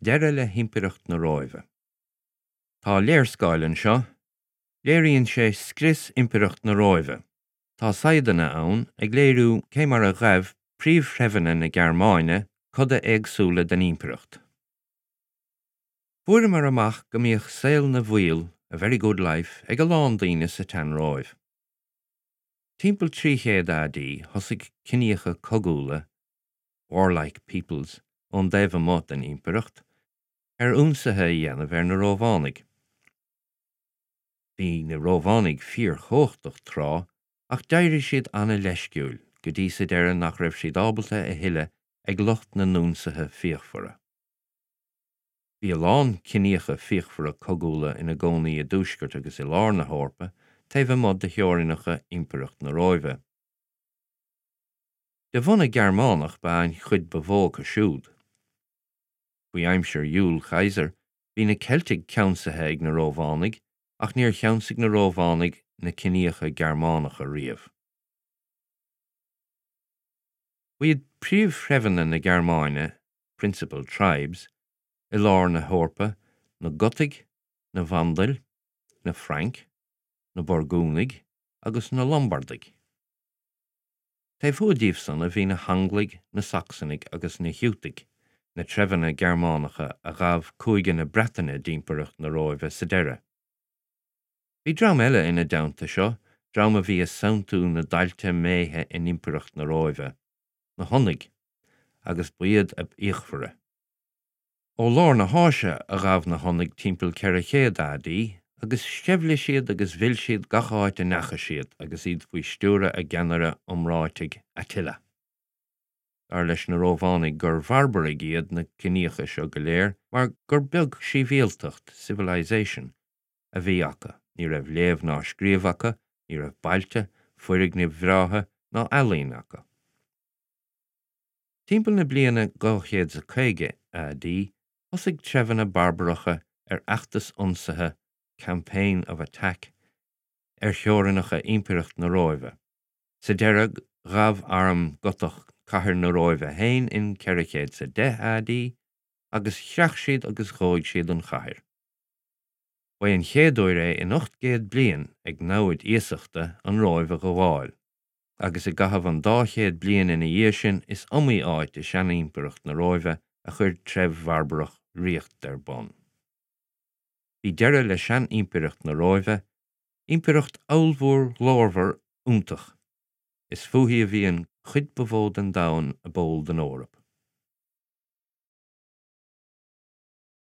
Deireadh le hImpireacht na Róimhe. Tá léarscáil anseo. Léiríonn sé scrios Impireacht na Róimhe. Tá saigheadanna ann ag léiriú cé mar a ghaibh príomhthreibheanna na Gearmáine coda éagsúla den impireacht. Fuaireamar amach go mbíodh saol na bhfuíoll, a very good life, ag a lán daoine sa tSean-Róimh. Timpeall 300 AD thosaigh ciníocha cogúla, warlike peoples, ón dtaobh amuigh den impireacht, ar ionsaithe a dhéanamh ar na Rómhánaigh. Bhí na Rómhánaigh fíorchumhachtach tráth, ach d'éirigh siad an-leisciúil, go dtí sa deireadh nach raibh siad ábalta a thuilleadh ag lucht na n-ionsaithe fíochmhara. Bhí a lán ciníocha fíochmhara cogúla ina gcónaí i dtuaisceart agus i lár na hEorpa, taobh amuigh de theorainneacha Impireacht na Róimhe. De bhunadh Gearmánach ba ea an chuid ba mhó acu siúd. Faoi aimsir Iúil Chaesair bhí na Ceiltigh ceansaithe ag na Rómhánaigh ach níor cheansaigh na Rómhánaigh na ciníocha Gearmánacha riamh. Ba iad príomhthreibheanna na Gearmáine, principal tribes, i lár na hEorpa na Gotaigh, na Vandail, na Frainc, na Burgúnaigh agus na Lombardaigh. Taobh thuaidh díobh san a bhí na hAnglaigh, na Sacsanaigh agus na Giútaigh, na treibheanna Gearmánacha a ghabh cúige na Breataine d'Impireacht na Róimhe sa deireadh. Bhí dream eile ina dteannta seo, dream a bhí ag santú na dtailte méithe in Impireacht na Róimhe, na Hunaigh, agus ba iad ab fhíochmhaire. Ó lár na hÁise a ghabh na Hunaigh timpeall 400 AD agus sceimhligh siad agus mhill siad gach áit a ndeachaigh siad agus iad faoi stiúradh a gceannaire iomráitigh Attila. Dar leis na Rómhánaigh gur bharbaraigh iad na ciníocha seo go léir mar gur beag síbhialtacht, civilization, a bhí acu, ní raibh léamh ná scríobh acu, ní raibh bailte, foirgnimh bhreátha ná ealaín acu. Timpeall na bliana 250 AD, thosaigh treibheanna barbaracha ar fheachtas ionsaithe, campaign of attack, ar theorainneacha Impireacht na Róimhe. Sa deireadh, ghabh arm Gotach cathair na Róimhe féin in 410 AD, agus chreach siad agus dhóigh siad an chathair. Ba é an chéad uair é in 800 bliain ag namhaid iasachta an Róimh a ghabháil. agus i gcaitheamh an dá chéad bliain ina dhiaidh sin is iomaí áit i seanImpireacht na Róimhe a chuir treibh bharbarach ríocht ar bun. Bhí deireadh le sean-Impireacht na Róimhe, impireacht ollmhór ghlórmhar iontach. Is fúithi a bhí an chuid ba mhó den domhan ab eol don Eoraip.